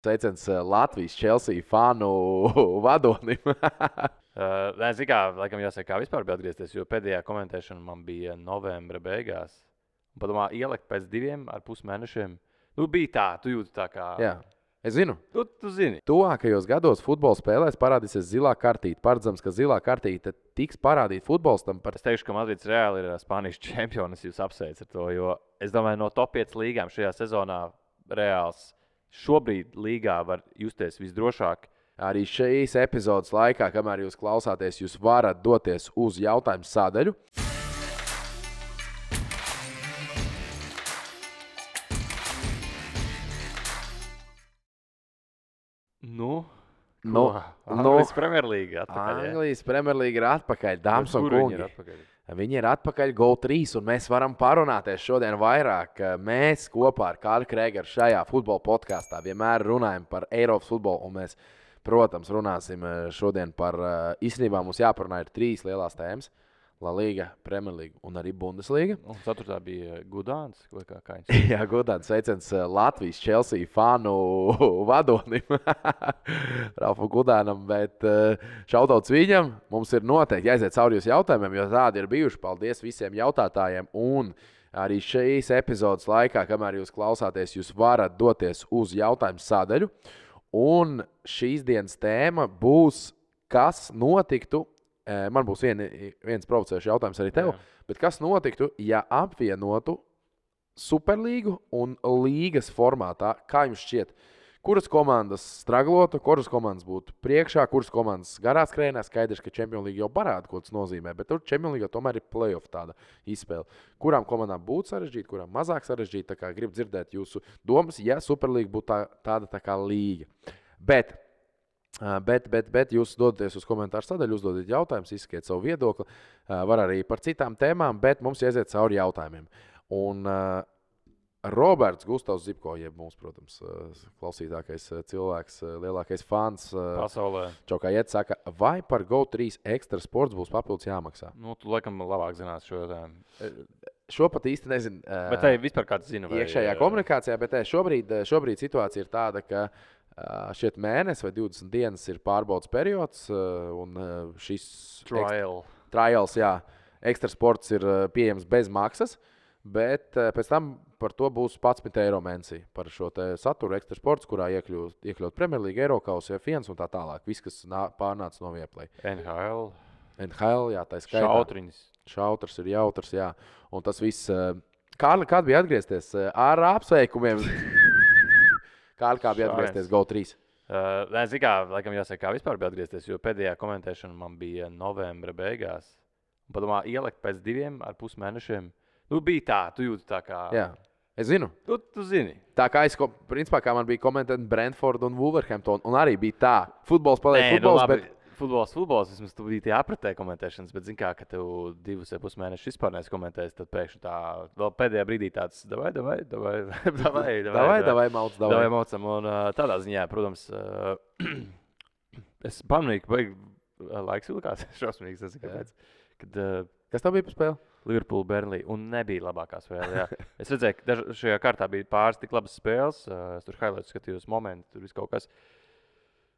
Sveiciens Latvijas Chelsea fanu vadonim. Nē, zinu, kā, laikam jāsaka, kā vispār bija atgriezties, jo pēdējā komentēšana man bija novembra beigās. Un padomā, ielikt pēc 2,5 mēnešiem. Nu, bija tā, tu jūti tā kā... Jā, es zinu. Tu zini. Tuvākajos gados futbola spēlēs parādīsies zilā kartīte. Paredzams, ka zilā kartīte tiks parādīta futbolistam par... Es teikšu, ka Madrids Reāli ir Spānijas čempions, jūs apsveicat ar to, jo es domāju, no top 5 līgām šajā sezonā Reāls šobrīd līgā var justies visdrošāk. Arī šīs epizodes laikā, kamēr jūs klausāties, jūs varat doties uz jautājumu sadaļu. Anglijas Premjerlīga atpakaļ. Anglijas Premjerlīga ir atpakaļ, dāmas un kungi. Viņi ir atpakaļ GO3, un mēs varam parunāties šodien vairāk. Mēs kopā ar Kārli Krēgeru šajā futbola podkāstā vienmēr runājam par Eiropas futbolu, un mēs, protams, runāsim šodien par, īstenībā mums jāparunā ir 3 lielās tēmas. La Liga, Premjerlīga un arī Bundesliga. Un 4. bija Gudāns, vai kā viņš? Jā, Gudāns, sveiciens Latvijas Chelsea fanu vadonim, Ralfam Gudānam, bet šautauts viņam. Mums ir noteikti jāiziet cauri jūsu jautājumiem, jo tādi ir bijuši. Paldies visiem jautātājiem. Un arī šīs epizodes laikā, kamēr jūs klausāties, jūs varat doties uz jautājumu sadaļu. Un šīs dienas tēma būs, kas notiktu. Man būs viens provocējušs jautājums arī tev. Jā. Bet kas notiktu, ja apvienotu Superlīgu un līgas formātā? Kā jums šķiet, kuras komandas straglotu, kuras komandas būtu priekšā, kuras komandas garā skrējienā? Skaidrs, ka Champions League jau parāda, ko tas nozīmē, bet tur Champions League tomēr ir playoff tāda izspēle. Kurām komandām būtu sarežģīta, kurām mazāk sarežģīta? Tā kā gribu dzirdēt jūsu domas, ja Superlīga būtu tāda tā kā līga. Bet jūs dodaties uz komentāru sadaļu, uzdodiet jautājumus, izsakiet savu viedokli. Var arī par citām tēmām, bet mums jāiziet cauri jautājumiem. Un Roberts Gustavs Zipko, jeb mums, protams, klausītākais cilvēks, lielākais fans pasaulē. Čaukājiet saka, vai par GO3 ekstra sports būs papildus jāmaksā? Nu, tu laikam labāk zinās šo jautājumu. Šo pat īsti nezinu. Bet tai vispār kāds zina? Iekšējā komunikācijā, bet šobrīd situācija ir tāda, ka šeit mēnesis vai 20 dienas ir pārbaudas periods, un šis trials, jā, ekstra sports ir pieejams bez maksas, bet pēc tam par to būs 11 eiro mēnesī par šo saturu ekstra sports, kurā iekļaut Premjerlīga, Eirokausa, F1 un tā tālāk. Viss, kas pārnāca no Viaplay. NHL, jā, tā skaitā. Šautrs ir jautrs, jā. Un tas viss. Kārli, kād bija atgriezties ar apsveikumiem? Kā bija atgriezties GO3? Nē, zinu, kā, laikam jāsaka, kā vispār bija atgriezties, jo pēdējā komentēšana man bija novembra beigās. Un padomā, ielikt pēc 2,5 mēnešiem. Nu, bija tā, tu jūti tā kā... Jā, es zinu. Tu zini. Tā kā principā, kā man bija komentēt Brentford un Wolverhampton, un arī bija tā. Futbols paliek futbols, bet... Futbols, vismaz tu biji tie apritē komentēšanas, bet zini kā, ka tev 2,5 mēnešus vispār neesi komentējis, tad pēkšņi tā vēl pēdējā brīdī tāds davai, maucam. Un tādā ziņā, protams, es pamanīju, ka laiks vilkās šausmīgs, tas ir kāpēc. Kas tev bija par spēli? Liverpool, Burnley, un nebija labākā spēle, jā. Es redzēju, ka šajā kārtā bija pāris tik labas spēles, es tur highlights skatījos momenti, tur viss kaut kas.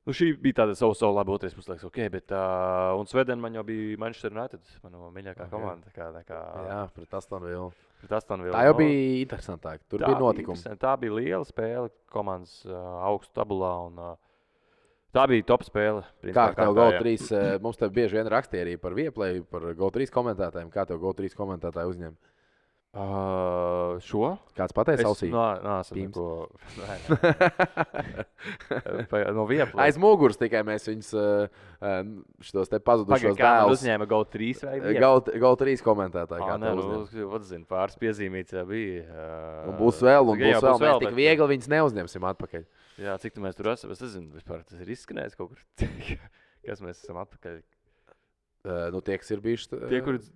Nu, šī bija tāda savu labi otrais puslaiks, ok, bet un Svedena man jau bija Manchester United, manu mīļākā komanda. Jā, pret Aston Villa. Tā jau bija interesantāk, tur bija notikumi. Tā bija liela spēle, komandas augstu tabulā, un tā bija top spēle. Kā tev GO3, mums tev bieži vien rakstīja arī par Viaplay, par GO3 komentētājiem, kā tev GO3 komentētāji uzņem? Šo? Kāds pateica ausī? No Viaplay. Aiz muguras tikai mēs viņus šitos te pazudušos dēlus. Uzņēma GO3 vai GO3 komentētāji. Pāris piezīmīts bija. Un būs vēl. Mēs tik viegli viņus neuzņemsim atpakaļ. Jā, cik tu mēs tur esam? Es nezinu, vispār tas ir izskanējis kaut kur. Kas mēs esam atpakaļ? Tie, kas ir bijuši,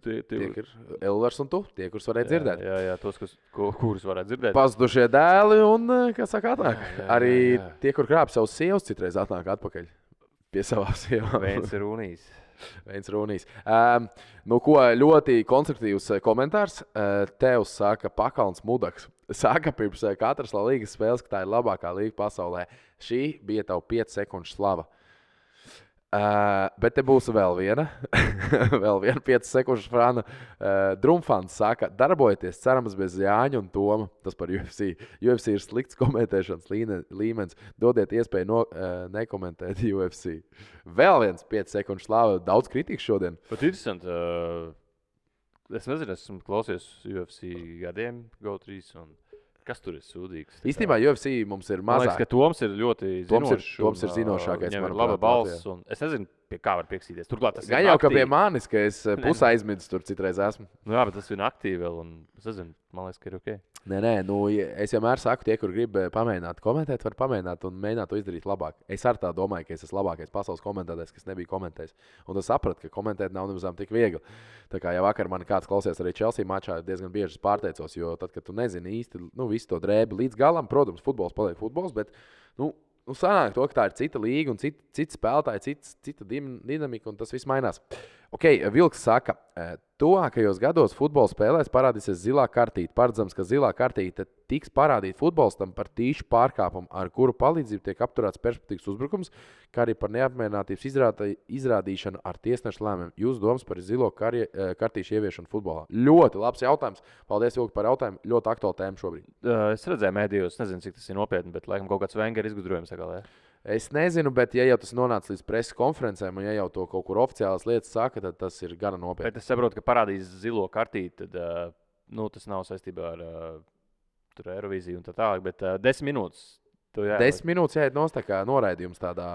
tie ir Elvars un tu, tie, kurus varētu dzirdēt. Jā, tos, kurus varētu dzirdēt. Pazudušie dēli un, kā saka, atnāk. Arī tie, kur krāp savus sievas, citreiz atnāk atpakaļ pie savām sievām. Viens ir Unijas. Viens runīs. Nu, ko ļoti konstruktīvs komentārs. Tev saka Pakalns Mudaks. Saka pirms katras līgas spēles, ka tā ir labākā līga pasaulē. Šī bija tava 5 sekundžu slava. Bet te būs vēl viena 5 sekundžu frāna. Drumfans saka, darbojieties, cerams, bez Jāņa un Toma. Tas par UFC. UFC ir slikts komentēšanas līmenis. Dodiet iespēju nekomentēt UFC. Vēl viens 5 sekundžu slava. Daudz kritikas šodien. Pat interesanti. Es nezinu, esmu klausies UFC gadiem, GO3. Kas tur ir sūdīgs? Īstenībā UFC mums ir mazāk. Man liekas, ka Toms ir ļoti zinošs. Toms ir zinošākais. Viņam ir laba balss. Es nezinu, pie kā var piekstīties. Turklāt tas gan jau, ka pie manis, ka es pusē aizmirsu tur citreiz esmu. Nu jā, bet tas ir aktīvi vēl. Es nezinu, man liekas, ka ir ok. Nē, nu, es vienmēr saku, tie, kur grib pamēģināt komentēt, var pamēģināt un mēģināt to izdarīt labāk. Es ar tā domāju, ka es esmu labākais pasaules komentētājs, kas nebija komentējis. Un es sapratu, ka komentēt nav nemaz tik viegli. Tā kā jau vakar man kāds klausījās arī Chelsea mačā, diezgan bieži pārteicos, jo tad, kad tu nezini īsti visu to drēbi līdz galam, protams, futbols paliek futbols, bet sanāk to, ka tā ir cita līga un cita spēlētāja, cita dinamika un tas viss mainās. Ok, Vilks saka, tuvākajos gados futbola spēlēs parādīsies zilā kartīte. Paredzams, ka zilā kartīte tiks parādīta futbolistam par tīšu pārkāpumu, ar kuru palīdzību tiek apturēts perspektīvas uzbrukums, kā arī par neapmierinātības izrādīšanu ar tiesnešu lēmumiem. Jūsu domas par zilo kartīšu ieviešanu futbolā? Ļoti labs jautājums. Paldies, Vilki, par jautājumu. Ļoti aktuāla tēma šobrīd. Es redzēju mēdījos, nezinu, cik tas ir nopietni, bet laikam kaut kāds Wenger izgudrojums sagalē. Es nezinu, bet ja jau tas nonāca līdz preses konferencēm, un ja jau to kaut kur oficiālas lietas saka, tad tas ir gana nopietni. Bet es saprotu, ka parādīs zilo kartīti, tad tas nav saistībā ar Eirovīziju un tā tālāk, bet 10 minūtes. 10 minūtes jāiet nost, tā kā noraidījums tādā.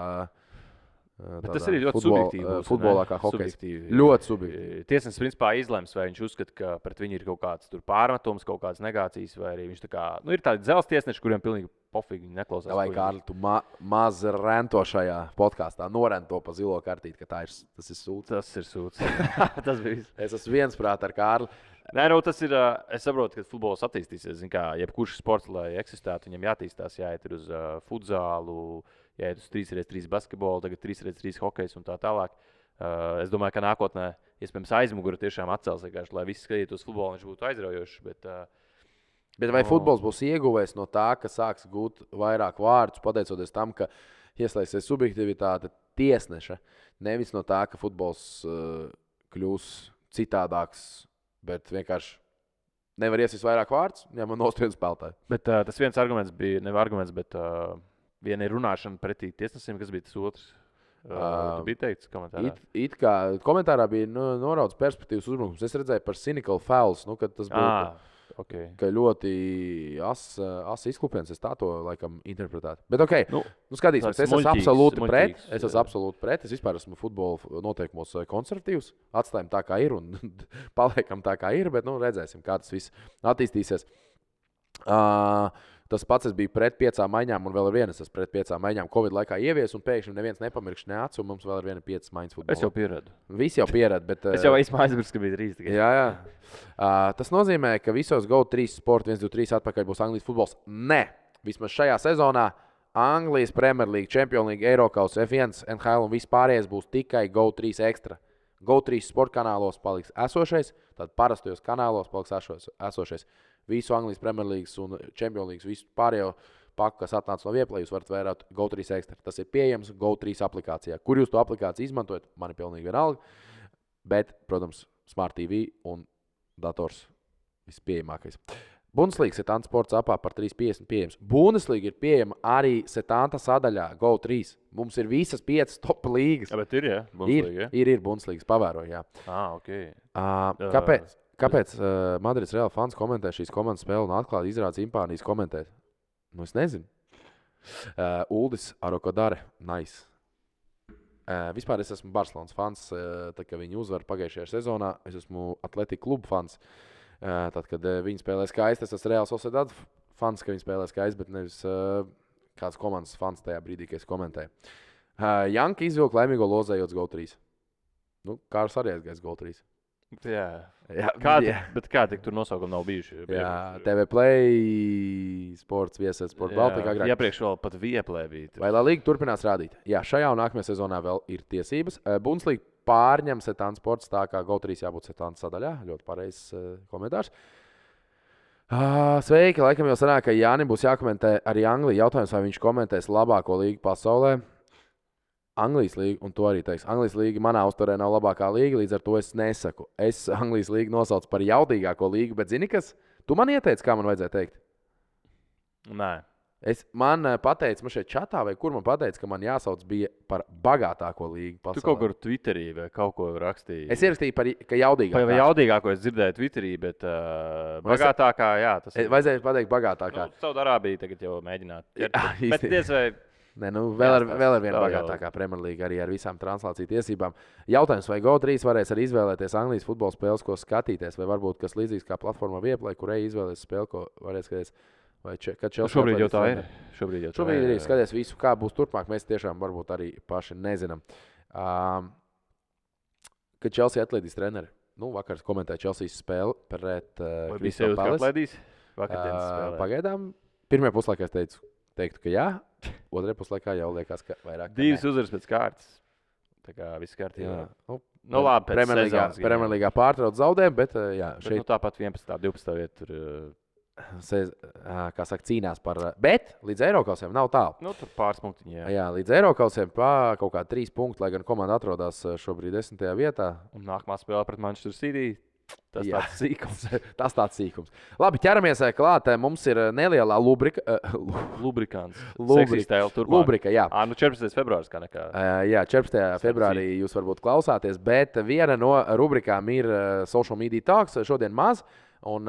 Bet tas arī ļoti subjektīvi. Futbolā kā hokejs. Ļoti subjektīvi. Tiesnesis principā izlems, vai viņš uzskata, ka pret viņu ir kaut kāds pārmetums, kaut kādas negācijas, vai arī viņš tā kā, ir tādi dzelzs tiesneši, kuriem pilnīgi pofīgi neklausās. Vai Kārli, tu maz rento šajā podkāstā, norento pa zilo kartīti, ka tas ir sūds. Tas ir sūds. Tas bija. Es esmu viensprāt ar Kārli. Nē, tas ir. Es saprotu, ka futbols attīstīsies. Jebkurš sports, lai eksistētu, viņam jāattīstās, jāiet uz futzālu, jāiet uz 3x3 basketbolu, tagad 3x3 hokejs un tā tālāk. Es domāju, ka nākotnē iespējams aizmugure tiešām atcels, lai visi skatītos futbolu, viņš būtu aizraujošs. Bet vai futbols būs ieguvējis no tā, ka sāks gūt vairāk vārdus, pateicoties tam, ka ieslēgsies subjektivitāte tiesneša, nevis no tā, ka futbols kļūs citādāks, bet vienkārši nevar iesist vairāk vārdus, ja man nostriedu spēlētāju. Bet tas viens arguments bija, nevis arguments, bet viena ir runāšana pretī tiesnesim, kas bija tas otrs. Tu biji teikts komentārā? It kā komentārā bija noraudzes perspektīvas uzbrukums. Es redzēju par cynical fouls, kad tas būtu. Okay. Ka ļoti asa izklupiens, es tā to laikam interpretētu. Bet ok, skatīsimies, es esmu absolūti pret. Es esmu absolūti pret. Es vispār esmu futbola noteikumos konservatīvs. Atstājam tā, kā ir un paliekam tā, kā ir, bet redzēsim, kā tas viss attīstīsies. Tas pats es biju pret 5 maiņām, un vēl ir viena, es esmu pret 5 maiņām Covid laikā ievies, un pēkšņi neviens nepamirkš ne acu, un mums vēl ir viena 5 maiņas futbolā. Es jau pieradu. Visi jau pieradu, bet... Es jau aizmirsu, ka bija 3 tikai. Jā. Tas nozīmē, ka visos GO3 sporta 1, 2, 3 atpakaļ būs Anglijas futbols. Nē, vismaz šajā sezonā Anglijas Premier League, Champions League, Eirokaus, F1, NHL un viss pārējais būs tikai GO3 ekstra. GO3 sporta kanālos paliks esošais, tad parastajos kanālos paliks esošais. Visu Anglijas Premier League un Champions League, visu pārējo paku, kas atnāca no Vieplay, jūs varat vērāt GO3 ekstra. Tas ir pieejams GO3 aplikācijā. Kur jūs to aplikāciju izmantojat, man ir pilnīgi vienalga. Bet, protams, Smart TV un dators vispieejamākais. Bundesliga Setanta sports apā par 3,50 pieejams. Bundesliga ir pieejama arī Setanta sadaļā GO3. Mums ir visas 5 top līgas. Ja, bet ir, ja? Bundesliga, ir Bundesligas, pavēroju, jā. Ok. Kāpēc Madrids Real fans komentē šīs komandas spēli un atklāti izrāda simpānijas komentēt? Es nezinu. Uldis Arokodare, nice. Vispār es esmu Barcelonas fans, tad, kad viņi uzvar pagājušajā sezonā. Es esmu Atletico klubu fans. Tad, kad viņi spēlē skaisti, es esmu Real Sociedad fans, ka viņi spēlē skaisti, bet nevis kāds komandas fans tajā brīdī, kad es komentēju. Janka izvilka laimīgo lozējot GO3. Kārs arī aizgājis GO3. Jā. Kādi tur nosaukumi nav bijuši? Jā, TV Play, sports, vieses, sports Baltika agrāk. Iepriekš vēl pat Vieplay bija. Vai La Liga turpinās rādīt? Jā, šajā un nākamajā sezonā vēl ir tiesības. Bundesliga pārņem Setāna sports, tā kā GO3 jābūt Setāna sadaļā. Ļoti pareizs komentārs. Sveiki, laikam jau sanāk, ka Jānim būs jākomentē arī Anglija. Jautājums, vai viņš komentēs labāko līgu pasaulē. Anglijas līga, un to arī teiks. Anglijas līga manā uzturē nav labākā līga, līdz ar to es nesaku. Es Anglijas līgu nosaucu par jaudīgāko līgu, bet zini kas? Tu man ieteici, kā man vajadzēja teikt? Nē. Man pateica, man šeit čatā, vai kur man pateica, ka man jāsauc bija par bagātāko līgu pasaulē. Tu kaut kur Twitterī vai kaut ko rakstīji. Es ierakstīju par, ka jaudīgāko. Vai jaudīgāko es dzirdēju Twitterī, bet bagātākā, jā. Tas ir. Vajadzēja pateikt bagātākā. Saudārābija tagad jau mēģināt. Bet diez vai. Nē, vēl ar vienu bagātākā Premjerlīga arī ar visām translāciju tiesībām. Jautājums, vai GO3 varēs arī izvēlēties Anglijas futbola spēles, ko skatīties, vai varbūt kas līdzīgs kā platformā Vieplay, kur izvēlēties spēli, ko varēs skatīties. Šobrīd jau tā ir. Šobrīd arī skaties visu, kā būs turpmāk. Mēs tiešām varbūt arī paši nezinām. Kad Chelsea atlaidīs treneri. Vakar komentēja Chelseas spēli pret Crystal Palace. Pagaidām. Pirmajā puslaikā es teiktu, ka jā. Otrajā puslaikā jau liekas, ka vairāk. 2 uzvaras pēc kārtas. Tā kā viss kārtībā. Labi, pēc Premjerlīgā pārtrauc zaudējumu, bet jā. Bet tāpat 11. 12. vieta tur. Kā saka, cīnās par. Bet līdz Eirokausiem nav tālu. Tur pāris punktiņi. Jā, līdz Eirokausiem kaut kā 3 punkti, lai gan komanda atrodas šobrīd 10. vietā. Un nākamā spēle pret Manchester City. Tas tāds sīkums. Labi, ķeramies klāt. Mums ir nelielā lubrikants. Lubrika, jā. 14. februāris kā nekā. Jā, 14. februārī jūs varbūt klausāties, bet viena no rubrikām ir Social Media Talks. Šodien maz. Un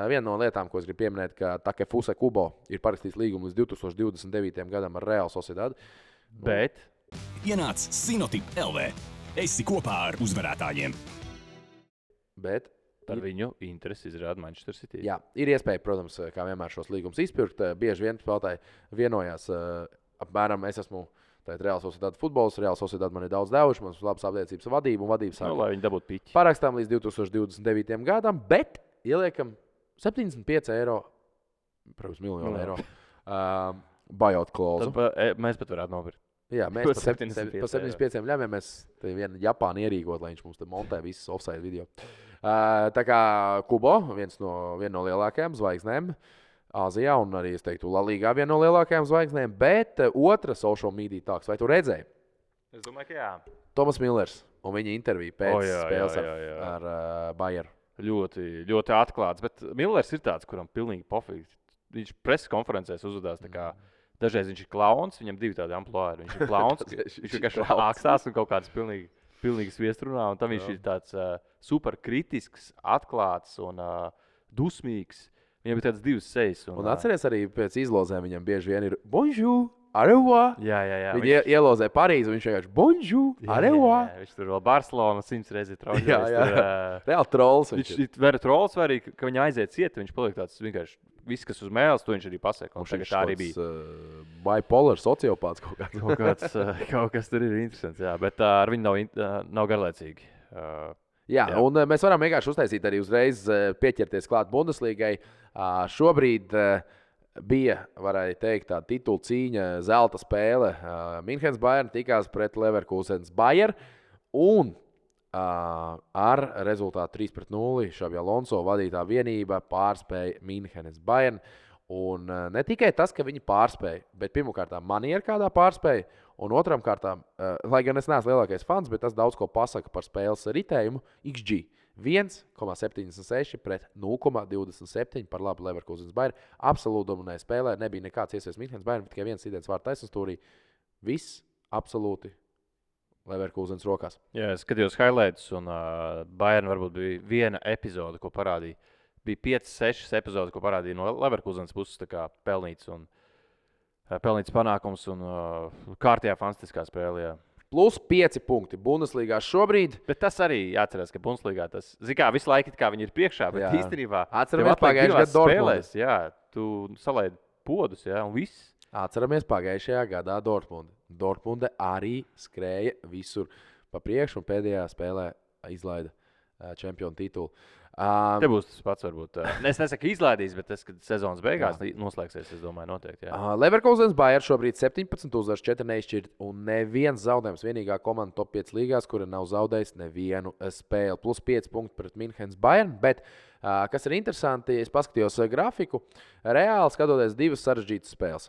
viena no lietām, ko es gribu pieminēt, ka Takefuse Kubo ir parakstīts līgumu līdz 2029. gadam ar Real Sociedad. Bet ienāc Sinotip LV. Esi kopā ar uzvarētājiem. Bet par viņu interesi izrāda Manchester City. Jā, ir iespēja, protams, kā vienmēr šos līgumus izpirkt. Bieži vien spēlētāji vienojās apmēram, es esmu Real Sociedad futbols, Real Sociedad man ir daudz devuši, man ir labas aptiecības vadība un vadības sākuma. Lai viņi dabūtu piķi. Parakstām līdz 2029. gadam, bet ieliekam 75 eiro, protams, miljonu eiro buyout klauzu. Mēs pat varētu nopirkt. Jā, mēs par 75 ļāviem mēs te vienu Japānu ierīkot, lai viņš mums te montē visas offside video. Tā kā Kubo, viena no lielākajām zvaigznēm Āzijā un arī, es teiktu, La Ligā viena no lielākajām zvaigznēm, bet otra social media talks. Vai tu redzēji? Es domāju, ka jā. Tomas Millers un viņa intervija pēc spēles ar Bayern. Ļoti, ļoti atklāts, bet Millers ir tāds, kuram pilnīgi pofīgi. Viņš preses konferencēs uzvedās tā kā dažreiz viņš ir klauns, viņam 2 tādi amplori. Viņš ir klauns, viņš vienkārši ākstās un kaut kāds pilnīgi sviestrunā, un tam viņš ir tāds super kritisks, atklāts un dusmīgs. Viņam ir tāds 2 sejas. Un atceries arī pēc izlozēm viņam bieži vien ir bonjour, au revoir. Jā. Viņi ielozē Parīzi, un viņš vienkārši bonjour, au revoir. Viņš tur vēl Barcelona 100 reizes troļļojas. Jā. Reāli trolls. Viņš ir trolls vai arī, ka viņa aiziet ciet, viņš paliek tāds vienkārši viss, kas uz mēles, to viņš arī pasaka. Tagad tā arī bija. Bipolar sociopāts kaut kāds. Kaut kas tur ir interesants, jā, bet ar viņu nav garlaicīgi. Jā, un mēs varam vienkārši uztaisīt arī uzreiz pieķerties klāt Bundeslīgai. Šobrīd bija, varēja teikt, tā titula cīņa, zelta spēle. Minhenes Bayern tikās pret Leverkusens Bayern un ar rezultātu 3-0 Xabi Alonso vadītā vienība pārspēja Minhenes Bayern. Un ne tikai tas, ka viņi pārspēja, bet pirmkārt maniera kādā pārspēja, un otram kārtām, lai gan es neesmu lielākais fans, bet tas daudz ko pasaka par spēles ritējumu, XG 1,76 pret 0,27 par labu Leverkusens Bayern. Absolūti dominēja spēlē, nebija nekāds iespējas Minhenes Bayern, tikai viens sidens vārds taisnstūrī. Viss absolūti Leverkusens rokās. Jā, es skatījos highlights, un Bayern varbūt bija viena epizode, ko parādīja. Bija 5-6 epizodes, ko parādīja no Leverkusens puses, tā kā pelnīts panākums un kārtējā fantastiskā spēlē. Jā. Plus 5 punkti Bundeslīgā šobrīd. Bet tas arī jāatcerās, ka Bundeslīgā tas, zikā, visu laiku kā viņi ir priekšā, bet īstenībā atceramies pagājušajā gadā Dortmundas. Jā, tu salaidi podus, jā, un viss. Atceramies pagājušajā gadā Dortmundu. Dortmunde arī skrēja visur pa priekšu un pēdējā spēlē izlaida čempionu titulu. Te būs tas pats, varbūt. Es nesaku izlaidīs, bet tas, kad sezonas beigās noslēgsies, es domāju, noteikti. Leverkusens Bayern šobrīd 17 uzvaras, 4 neizšķirt un neviens zaudējums. Vienīgā komanda top 5 līgās, kura nav zaudējusi nevienu spēli. Plus 5 punkti pret Münchenes Bayern. Bet, kas ir interesanti, es paskatījos grafiku, reāli skatoties divas sarežģītas spēles.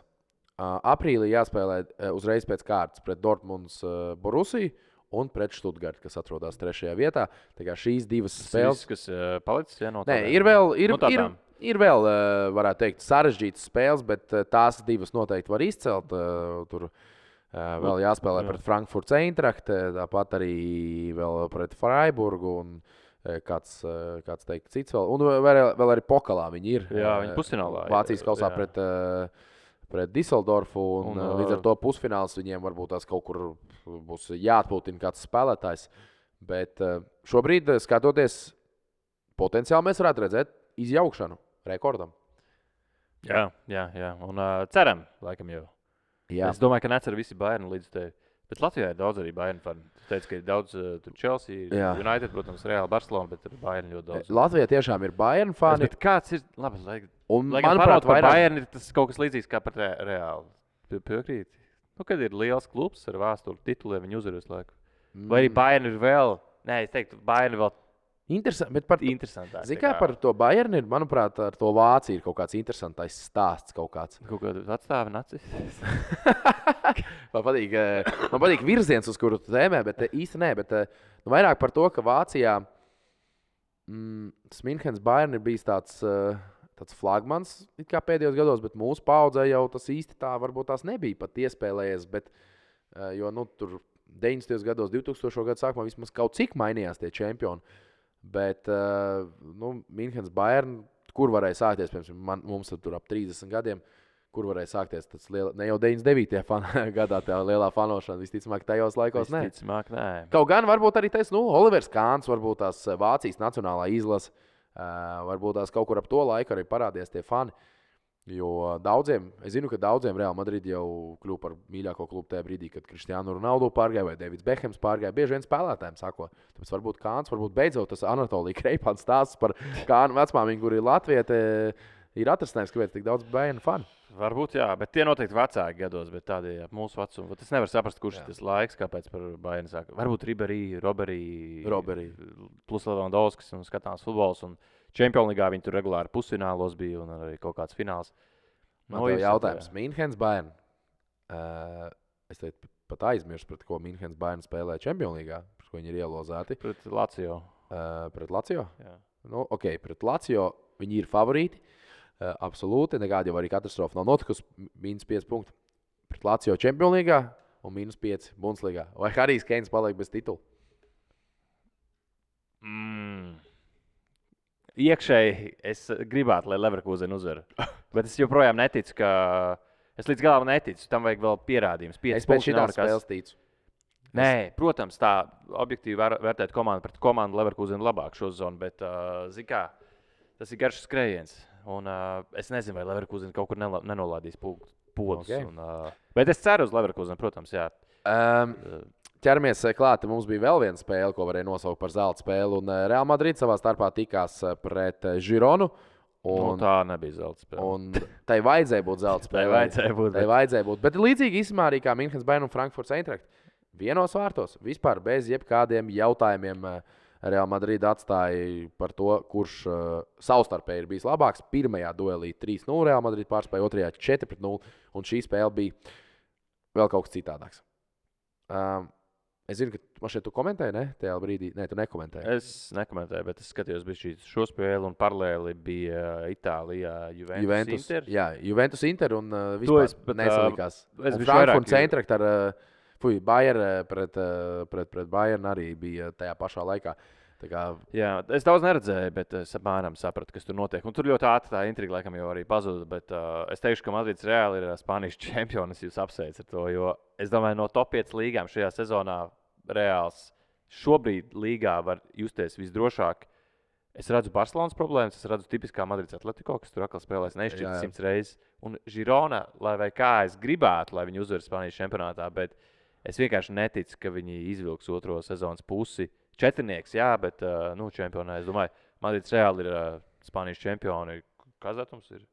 Aprīlī jāspēlē uzreiz pēc kārtas pret Dortmunds Borussiju un pret Stuttgartu, kas atrodas 3. vietā. Tā kā šīs divas spēles, kas palicis, no tādām. Ir vēl, varētu teikt, sarežģītas spēles, bet tās divas noteikti var izcelt. Tur vēl jāspēlē pret Frankfurts Eintracht, tāpat arī vēl pret Freiburgu un kāds teikt cits vēl. Un vēl arī pokalā viņi ir. Jā, viņi pusfinālā. Vācijas kausā pret Düsseldorfu, un līdz ar to pusfināls viņiem varbūt tās kaut kur būs jāatpūtina kāds spēlētājs. Bet šobrīd, skatoties, potenciāli mēs varētu redzēt izjaukšanu rekordam. Jā. Un ceram, laikam jau. Jā. Es domāju, ka necer visi Bayern līdz tevi. Bet Latvijā ir daudz arī Bayern fani. Tu teici, ka ir daudz Chelsea, United, protams, Real Barcelona, bet ir Bayern ļoti daudz. Latvijā tiešām ir Bayern fani. Bet kāds ir, labi, manuprāt, Bayern ir tas kaut kas līdzīgs kā par Real. Piekrīt. Kad ir liels klubs ar vēsturi tituliem, viņi uzvar visu laiku. Vai arī Bayern ir vēl, es teiktu, Bayern ir vēl interesantāk. Zini, kā par to Bayern ir, manuprāt, ar to Vāciju ir kaut kāds interesantais stāsts kaut kāds. Kaut kāds atstāvi nacis. Man patīk virziens, uz kuru tu tēmē, bet īsti nē. Bet vairāk par to, ka Vācijā Münchenes Bayern ir bijis tāds flagmans it kā pēdējos gados, bet mūsu paudzē jau tas īsti tā varbūt tās nebija pat iespēlējies. Bet, jo tur 90. gados, 2000. gadu sākumā vismaz kaut cik mainījās tie čempioni. Bet Münchenes Bayern, kur varēja sākties, piemēram, mums tur ap 30 gadiem, kur varēja sākties tas ne jau 99. gadā tā lielā fanošana, visticamāk tajos laikos nē. Kaut gan varbūt arī tas, Olivers Kāns, varbūt tās Vācijas nacionālā izlase, varbūt tās kaut kur ap to laiku arī parādījās tie fani. Jo es zinu, ka daudziem Real Madrid jau kļuva par mīļāko klubu tajā brīdī, kad Cristiano Ronaldo pārgāja vai Davids Bekhams pārgāja. Bieži vien spēlētājiem sako. Tāpēc varbūt Kāns, varbūt beidzot tas Anatolija Kreipāns stāsts par Kānu vecmāmiņu, kur ir Latviete, ir atrasinājums, kāpēc tik daudz Bayern fani. Varbūt, jā, bet tie noteikti vecāki gados, bet tādi mūsu vecumi. Es nevaru saprast, kurš tas laiks, kāpēc par Bayern sāka. Varbūt Roberi, plus Levandovskis un skatāms futbols. Un Champions League viņi tur regulāri pusfinālos bija un arī kaut kāds fināls. Man tev jautājums. Münchenes Bayern. Es teicu, pat aizmirsu, pret ko Münchenes Bayern spēlē Champions League, pret ko viņi ir ielozēti. Pret Lazio. Pret Lazio? Jā. Pret Lazio viņi ir favorīti. Absolūti. Nekāda jau arī katastrofa nav notikusi. -5 punkti. Pret Lazio Champions League un -5 Bundesliga. Vai Harijs Keins paliek bez titula? Iekšēji es gribētu, lai Leverkusen uzvar. Bet es joprojām neticu, ka... Es līdz galam neticu. Tam vajag vēl pierādījums. Es pēc šitās spēles ticu. Nē, protams, tā objektīvi vērtēt komandu pret komandu Leverkusen labāk šo zonu, bet, zini kā, tas ir garš skrējiens. Un es nezinu, vai Leverkusen kaut kur nenolādīs podus. Okay. Bet es ceru uz Leverkusen, protams, jā. Ķeramies klāt, mums bija vēl viena spēle, ko varēja nosaukt par zelta spēli. Un Real Madrid savā starpā tikās pret Gironu. Tā nebija zelta spēle. Un tai vajadzēja būt zelta spēle. Tai vajadzēja būt. Bet līdzīgi īstenībā arī kā Münchenes Bayern un Frankfurts Eintracht. Vienos vārtos, vispār bez jebkādiem jautājumiem Real Madrid atstāja par to, kurš savstarpēji ir bijis labāks. Pirmajā duelī 3-0 Real Madrid pārspēja, otrajā 4-0. Un šī spēle bija vēl kaut kas citādāks. Es zinu, ka man šeit tu komentēji, ne? Tajā brīdī, ne, tu nekomentēji. Es nekomentēju, bet es skatījos šo spēli un paralēli bija Itālijā Juventus Inter. Jā, Juventus Inter un vispār nesalikās. Frankfurts Eintracht ar Bayern pret Bayern arī bija tajā pašā laikā. Jā, es daudz neredzēju, bet es apmēram sapratu, kas tur notiek. Un tur ļoti ātri tā intriga laikam jau arī pazuda. Bet es teikšu, ka Madrids reāli ir Spānijas čempions. Jūs apsveicat ar to, jo es domāju, no top 5 līgām šajā sezonā reāls šobrīd līgā var justies visdrošāk. Es redzu Barcelonas problēmas, es redzu tipiskā Madrids Atletico, kas tur atkal spēlēs neizšķirts 100 reizes. Un Girona, lai vai kā es gribētu, lai viņi uzvar Spānijas čempionātā, bet es vienkārši neticu, ka viņi izvilks otro sezonas pusi. Četrnieks, jā, bet čempionā, es domāju, Madrids Reāli ir Spānijas čempioni. Kāds datums ir?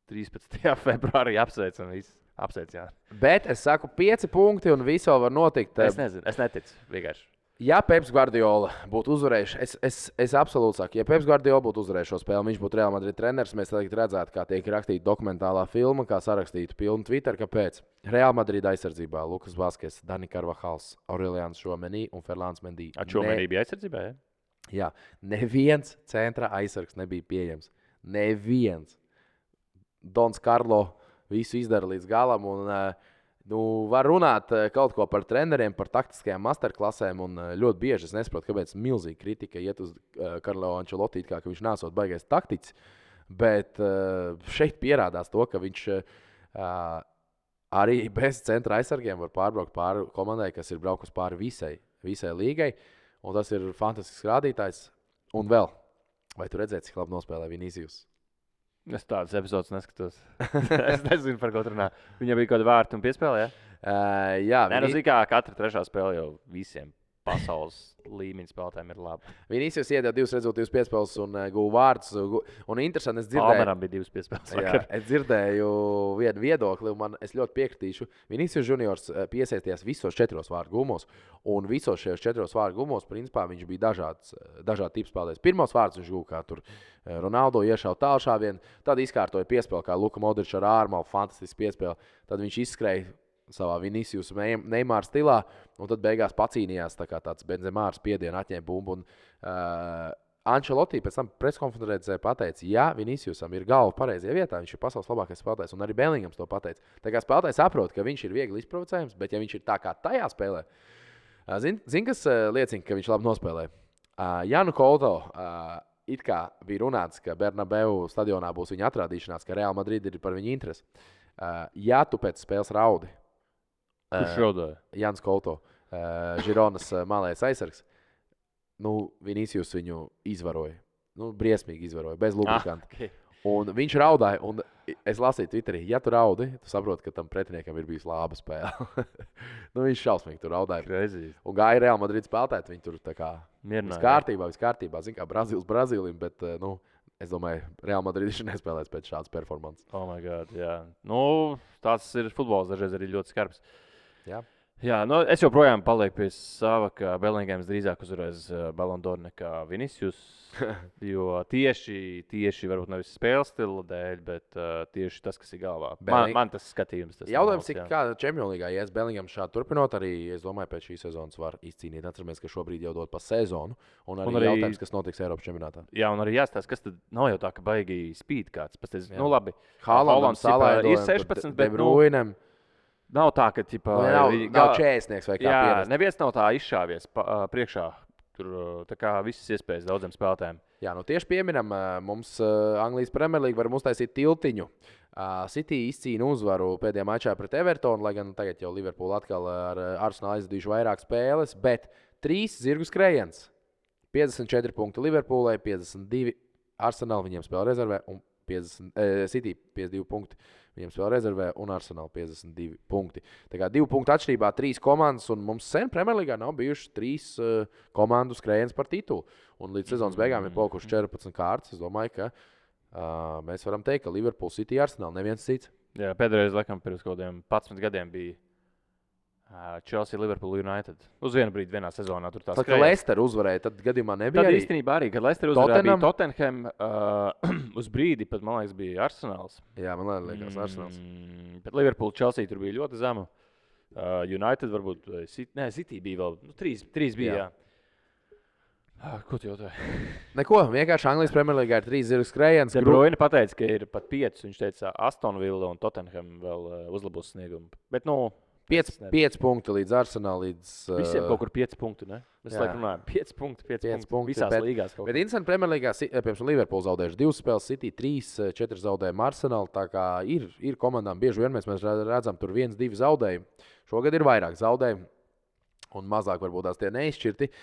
13. februārī apsveicam visus. Apsveic, jā. Bet es saku 5 punkti un viss vēl var notikt. Es nezinu, es neticu vienkārši. Ja Peps Guardiola būtu uzvarējis, es absolūti saku, ja Peps Guardiola būtu uzvarējis šo spēli, viņš būtu Real Madrid treneris, mēs tagad redzētu, kā tiek rakstīta dokumentālā filma, kā sarakstītu pilnu Twitter, kāpēc. Real Madrid aizsardzībā Lukas Vaskes, Dani Carvajals, Aurelians Chouameni un Ferlands Mendy. Chouameni bija aizsardzībā, jā? Jā, neviens centra aizsargs nebija pieejams. Neviens. Dons Karlo visu izdara līdz galam un var runāt kaut ko par treneriem, par taktiskajām masterklasēm, un ļoti bieži es nesaprotu, kāpēc milzīga kritika iet uz Karlo Ancelotti, ka viņš nesot baigais taktiķis, bet šeit pierādās to, ka viņš arī bez centra aizsargiem var pārbraukt pāri komandai, kas ir braukus pāri visai līgai, un tas ir fantastisks rādītājs. Un vēl, vai tu redzēji, cik labi nospēlē Vinicius? Es tādas epizodes neskatos. Es nezinu, par ko runā. Viņam bija kaut kāda vārta un piespēle, jā? Jā. Nē, nu, kā katra trešā spēle jau visiem pasaules līmeņa spēlētājiem ir laba. Vinicius iedeva 2 rezultātus piespēles un guva vārdus. Un interesanti, es dzirdēju. Palmeram bija 2 piespēles. Jā, es dzirdēju vienu viedokli, un es ļoti piekritīšu. Vinicius juniors piesaistījās visos 4 vārdu gumos, un visos šajos 4 vārdu gumos, principā, viņš bija dažādi tipi spēlētājs. Pirmos vārdus viņš guva, kā tur Ronaldo iešauja tālšāvienu, tad izkārtoja piespēli, kā Luka Modričs ar ārmalu, fantastiski piespēli. Tad viņš izskrēja savā Vinicius Neymar stilā, un tad beigās pacīnījās tā kā tāds Benzemārs piedienu, atņēma bumbu. Un Ancelotti pēc tam preskonferencē pateica, ja Viniciusam ir galva pareizajā vietā, viņš ir pasaules labākais spēlētājs, un arī Bellingams to pateica. Tā kā spēlētājs saprot, ka viņš ir viegli izprovocējams, bet ja viņš ir tā kā tajā spēlē, zin kas liecina, ka viņš labi nospēlē? Janu Couto it kā bija runāts, ka Bernabeu stadionā būs viņa atrādīšanās, ka Real Madrid ir par viņu interesi. Ja tu pēc spēles raudi, kurš raudāja? Jans Couto, Žironas malējais aizsargs, Vinicius viņu izvaroja. Briesmīgi izvaroja, bez lubrikanta. Okay. Un viņš raudāja, un es lasīju Twitterī, ja tu raudi, tu saproti, ka tam pretiniekam ir bijusi laba spēle. Viņš šausmīgi tur raudāja. Crazy. Un gāja Real Madrid spēlētāji, viņi tur tā kā mierināja. Viss kārtībā. Zin kā Brazīlim, bet, es domāju, Real Madrid viņš nespēlēs pēc šādas performances. Oh my God, jā. Tāds ir futbols, dažreiz arī ļoti skarbs. Jā. Jā, es joprojām palieku pie sava, ka Bellingams drīzāk uzvarēs Ballon d'Or nekā Vinicius. Jo tieši varbūt nevis spēles stila dēļ, bet tieši tas, kas ir galvā. Man tas skatījums. Jautājums, cik kā Champions League ies Bellingams šādi turpinot, arī, es domāju, pēc šīs sezonas var izcīnīt. Atceramies, ka šobrīd jau dod pa sezonu, un arī jautājums, kas notiks Eiropas čempionātā. Jā, un arī jāstāsta, kas tad nav jau tā, ka baigi spīd kāds. Pasties, labi. Haalandam ir 16, bet nav tā, ka nav 40 vai kā pierast. Neviens nav tā izšāvies priekšā. Tur tā kā visas iespējas daudziem spēlētājiem. Jā, tieši pieminam, mums Anglijas Premier League var uztaisīt tiltiņu. City izcīna uzvaru pēdējā mačā pret Evertonu, lai gan tagad jau Liverpool atkal ar Arsenalu aizvadījuši vairāk spēles, bet 3 zirgu skrējiens. 54 punkti Liverpoolai, 52 Arsenal viņiem spēle rezervē, un City 52 punkti. Viņiem spēlē rezervē un Arsenal 52 punkti. Tā kā 2 punktu atšķirībā 3 komandas, un mums sen Premjerlīgā nav bijuši 3 komandu skrējiens par titulu. Un līdz sezonas beigām ir palikuši 14 kārtas. Es domāju, ka mēs varam teikt, ka Liverpool, City, Arsenal neviens cits. Jā, pēdējais, laikam, pirms kaut kādiem 11 gadiem bija Chelsea, Liverpool, United. Uz vienu brīdi vienā sezonā tur tās skrēja. Tad, kad Leicester uzvarēja, tad gadījumā nebija arī. Tad īstenībā arī, kad Leicester uzvarēja, bija Tottenham, uz brīdi pat, man liekas, bija Arsenals. Jā, man liekas, Arsenals. Bet Liverpool, Chelsea tur bija ļoti zema. United varbūt, City bija vēl, 3 bija, jā. Ko tu jautāji? Neko, vienkārši Anglijas Premjerlīgā ir 3 zirgu skrējiens. De Bruyne pateica, ka ir pat 5, viņš teica Aston Villa un Tottenham vēl uzlabos sniegumu. Bet, 5 punkti līdz Arsenālam. Visiem kaut kur 5 punkti, ne? Mēs laikam runājam, 5 punkti visās līgās. Bet interesanti, Premjerlīgā, piemēram, Liverpool zaudējuši 2 spēles, City 3, 4 zaudējumi Arsenal. Tā kā ir komandām bieži vien mēs redzam tur 1-2 zaudējumi. Šogad ir vairāk zaudējumi un mazāk varbūt tās tie neizšķirti.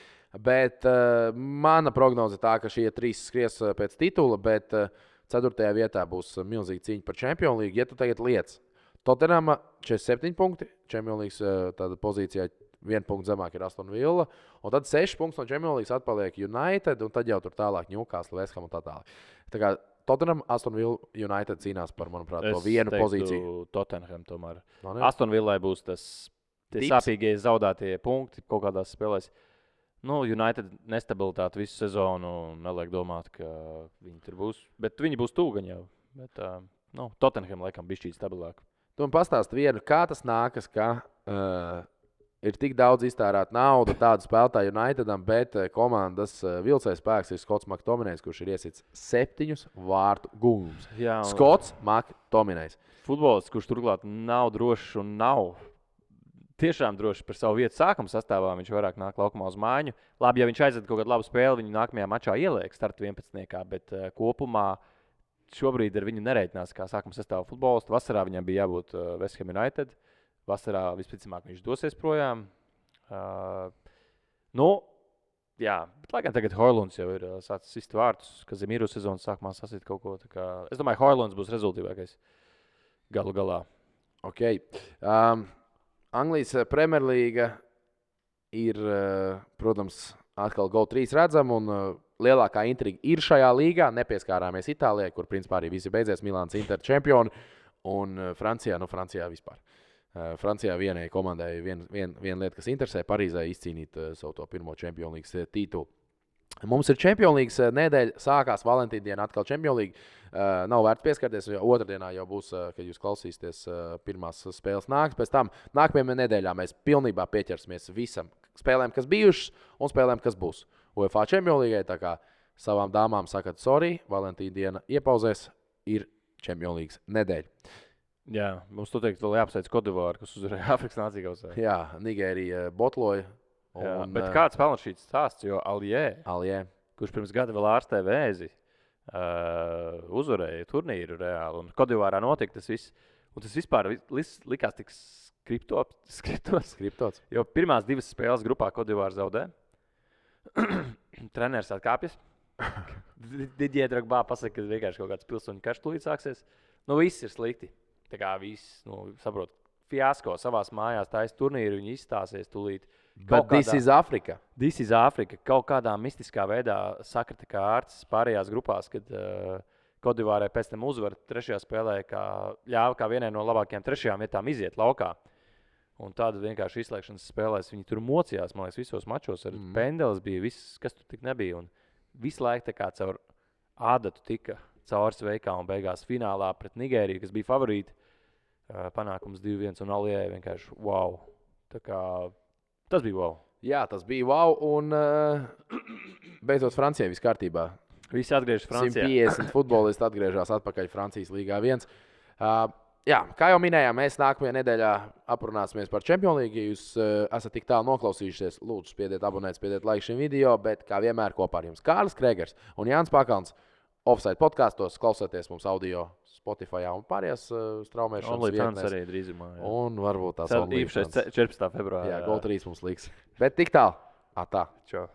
Bet mana prognoze tā, ka šie 3 skries pēc titula, bet 4. vietā būs milzīga cīņa par Champions League. Ja tu tagad liec Tottenham 47 punkti, Champions League tāda pozīcijā 1 punktu zemāk ir Aston Villa. Un tad 6 punktus no Champions League atpaliek United, un tad jau tur tālāk Newcastle, West Ham un tā tālāk. Tā kā Tottenham, Aston Villa, United cīnās par, manuprāt, to vienu pozīciju. Tottenham tomēr. No, Aston Villai būs tie sāpīgie zaudētie punkti kaut kādās spēlēs. United nestabilitāte visu sezonu, neliek domāt, ka viņi tur būs. Bet viņi būs tūgaņi jau. Bet Tottenham laikam bišķīt stabilāk. Tu man pastāsti vienu, kā tas nākas, ka ir tik daudz iztērēta nauda tādu spēlētāju Unitedam, bet komandas vilcējs spēks ir Skots McTominejs, kurš ir iesits 7 vārtu gūmus. Skots McTominejs. Futbolists, kurš turklāt nav drošs un nav tiešām droši par savu vietu sākuma sastāvā, viņš vairāk nāk laukumā uz mājiņu. Labi, ja viņš aizved kaut kādu labu spēli, viņu nākamajā mačā ieliek starta 11. Bet kopumā šobrīd ar viņu nereitinās kā sākuma sastāvā futbolistu. Vasarā viņam bija jābūt West Ham United. Vasarā vispticamāk viņš dosies projām. Jā, bet lai gan tagad Hojlunds jau ir sācis sist vārtus, ka Zemīru sezonas sākumā sasit kaut ko. Es domāju, Hojlunds būs rezultīvākais galu galā. Ok. Anglijas Premjerlīga ir, protams, atkal GO3 redzama, un lielākā intriga ir šajā līgā. Nepieskārāmies Itālijai, kur principā arī visi beidzies Milāns Inter čempioni, un Francijā vispār. Francijā vienai komandai viena lieta, kas interesē, Parīzē izcīnīt savu to pirmo Champions League titulu. Mums ir Champions League nedēļa, sākās Valentīna diena, atkal Champions League. Nav vērts pieskarties, jo otrdienā jau būs, kad jūs klausīsieties, pirmās spēles nāks. Pēc tam nākamajā nedēļā mēs pilnībā pieķersimies visam spēlēm, kas bijušas, un spēlēm, kas būs UEFA Champions League. Tā kā savām dāmām sakat, sorry, Valentīna diena iepauzēs, ir Champions League nedēļa. Jā, mums to teikt, vēl jāapsveic Kodivāru, kas uzvarēja Āfrikas Nāciju kausā. Jā, Nigērija botloja. Bet kāds pelna šīs stāsts, jo Aljē, kurš pirms gada vēl ārstē vēzi, uzvarēja turnīru reāli, un Kodivārā notika tas viss. Un tas vispār likās tik skriptots. Jo pirmās 2 spēles grupā Kodivāra zaudē. Treneris atkāpjas. Didier Drogba pasaka, ka vienkārši kaut kāds pilsoņu karš tūlīt sāksies. Viss ir slikti. Tā kā viss, saprot, fiasko savās mājās taisa turnīru, viņi izstāsies tūlīt. This is Africa. This is Africa. Kaut kādā mistiskā veidā sakrita kā ārsts pārējās grupās, kad Kodivārai pēc tam uzvar 3. spēlē, ļāva kā vienai no labākajām 3. vietām iziet laukā. Un tāda vienkārši izslēgšanas spēlēs viņi tur mocījās, man liekas, visos mačos. Ar pendeles bija viss, kas tur tik nebija. Un visu laiku tā kā caur ādatu tika caur sveikā un beigās finālā pret Nigēriju, kas bija favorīti. Panākums 2-1 un Aljē vienkārši wow. Tā kā tas bija wow. Jā, tas bija wow, un beidzot Francijai viss kārtībā. Visi atgriežas Francijā. 150 futbolisti atgriežas atpakaļ Francijas līgā 1. Jā, kā jau minējām, mēs nākamajā nedēļā aprunāsimies par Champions League. Ja jūs esat tik tālu noklausījušies, lūdzu, spiediet abonēt, spiediet like šim video, bet kā vienmēr kopā ar jums Kārlis Kregers un Jānis Pakalns. Offside podkastos, klausieties mums audio Spotify un pārējās straumēšanas vietnēs. Arī drīzumā. Jā. Un varbūt tās īpašais 14. februārā. Jā, GO3 mums liks. Bet tik tālu. Atā. Čau.